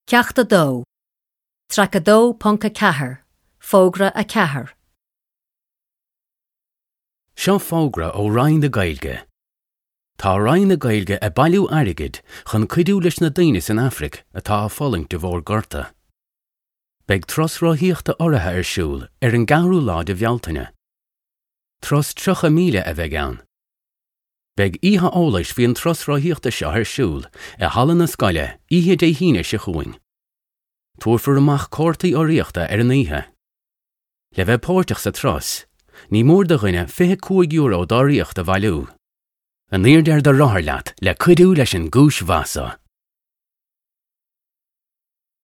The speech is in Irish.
Ceacht 2, Traic 2.4, Fógra 4. Seo fógra ó Roinn na Gaeilge. Tá Roinn na Gaeilge ag bailiú airgid chun cuidiú leis na daoine san Afraic atá ag fulaingt de bharr gorta. Beidh turas rothaíochta urraithe ar siúl ar an gceathrú lá de Bhealtaine. Turas 30 míle a bheidh ann. Beidh oíche eolais faoi an turas rothaíochta seo ar siúl i halla na scoile oíche Dé hAoine seo chugainn. Tabharfar amach cártaí urraíochta ar an oíche. Le bheith páirteach sa turas, ní mór do dhuine €25 d'urraíocht a bhailiú. In airde ar do rothar leat le cuidiú leis an gcúis mhaith seo.